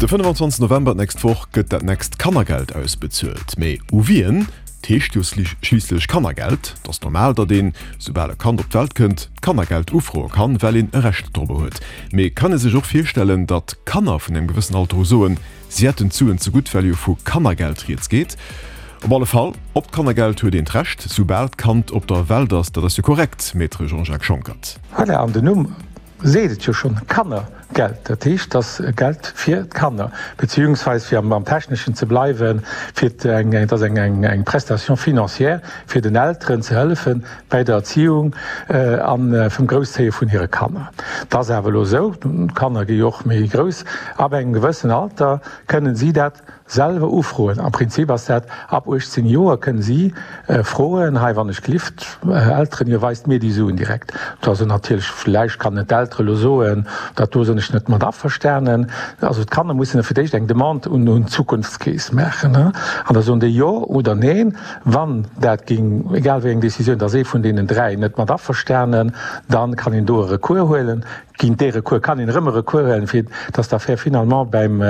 De 25 November d'nächst Woch gëtt dat nächst Kannergeld ausbezuelt. Mee u wien? 't heescht jo schliisslech Kannergeld. 't ass normal, datt een, soubal e Kand op d'Welt kënnt, d'Kannergeld ufroe kann, well een e Recht dorobber huet. Mee kann ee sech och virstellen, datt Kanner vun engem gewëssen Alter u soen, si hätten d'Suen zegutt, well jo vu Kannergeld rieds geet? Op alle Fall, op d'Kannergeld huet een d'Recht, soubal d'Kand op der Welt ass. Dat ass jo korrekt, Maître Jean-Jacques Schonckert. Voilà, an den Numm seet et jo schonn, Kannergeld, dat heescht, et ass Geld fir d'Kanner, beziehungsweise, fir am Techneschen ze bleiwen, fir eng, et ass eng Prestation financière, fir den Elteren ze hëllefen bäi der Erziehung a vum Grousszéie vun hire Kanner. Et ass awer elo esou, d'Kanner gi jo och méi grouss, ab engem gewëssen Alter kënnen si dat Selwer ufroen. Am Prinzip ass dat ab 18 Joer kënnen si froen, hei wann ech glift, Elteren, ihr weist mir déi Suen direkt. Do ass et natierlech, vläicht kann et d'Eltere lo soen, dat do sinn ech net mat averstanen. Also d'Kanner mussen da fir d'éischt eng Demande un d'Zukunftskeess maachen an da soen déi jo oder neen. Wann dat géing, egal wéi eng Décisioun, da ass ee vun deenen 3 net mat averstanen, da kann een do e Recours huelen. Géint dee Recours kann een erëm e Recours huelen, fir dass d'Affär finalement beim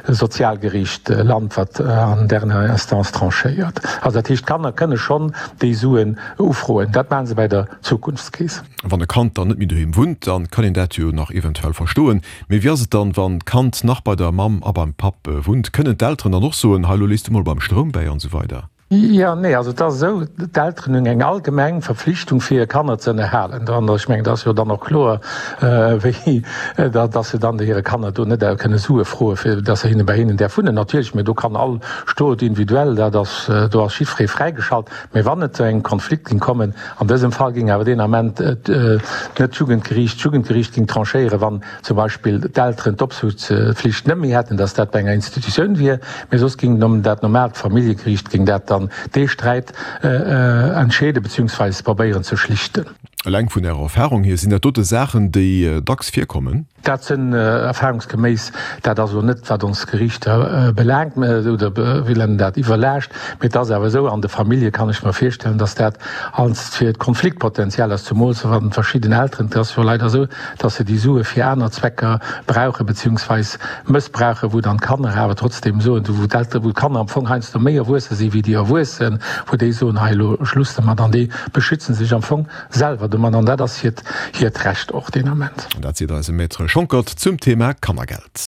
Sozialgeriicht lant, wat an dernière instance tranchéiert. Also dat heescht, d'Kanner kënne schonn déi Suen ufroen. Dat maache se bäi der Zukunftskeess. Wann e Kand dann net méi doheem wunnt, da kann een dat jo nach eventuell verstoen. Mee wéi ass et dann, wann d'Kand nach bei der Mamm a beim Papp wunnt? Kënnen d'Elteren dann och soen, hei elo lees du mol beim Stroum bäi an esou weider? Jo, nee, also et ass esou, d'Elteren hunn eng allgemeng Verpflichtung fir hir Kanner ze ënnerhalen. An ech mengen, dat ass jo dann och kloer, wéi datt se dann hire Kanner do net kënne Sue froen, fir datt se hinne bei hinnen däerf wunnen. Natierlech, mä do kann all Stot individuell, dat ass, do ass jiddweree fräigeschalt. Mä wann et zu engem Konflikt géing kommen, an dësem Fall géing awer deen Ament net d'Jugendgeriicht, d'Jugendgeriicht géing tranchéieren, wann zum Beispill d'Elteren d'Opsuchtspflicht net méi hätten, dass dat bei enger Institutioun wier, mee soss géing dat normaalt Familljegeriicht géing dat dann dee Sträit entscheeden beziehungsweise probéieren ze schlichten. Eleng vun Ärer Erfahrung hier, sinn dat dote Saachen, déi dacks virkommen? Dat sinn erfahrungsgeméiss, dat ass elo net wat ons Geriichter belaangt oder wéi nennen dat, iwwerlaascht, mee et ass awer esou, an de Famillje kann ech mer virstellen, dass dat als fir d'Konfliktpotenzial ass, zumools wann verschidden Elteren, et ass jo leider esou, dass se déi Sue fir aner Zwecker brauchen, beziehungsweis mëssbrauchen, wou dann d'Kanner awer trotzdem soen, wou d'Elteren, wou d'Kanner am Fong heiansdo méi erwuesse si wéi déi Erwuessen, wou déi soen, hei elo Schluss domat, an déi beschützen sech am Fong selwer domat, an dat ass hiert, hiert Recht och deen Ament. An dat seet eise Maître Schonckert zum Thema Kannergeld.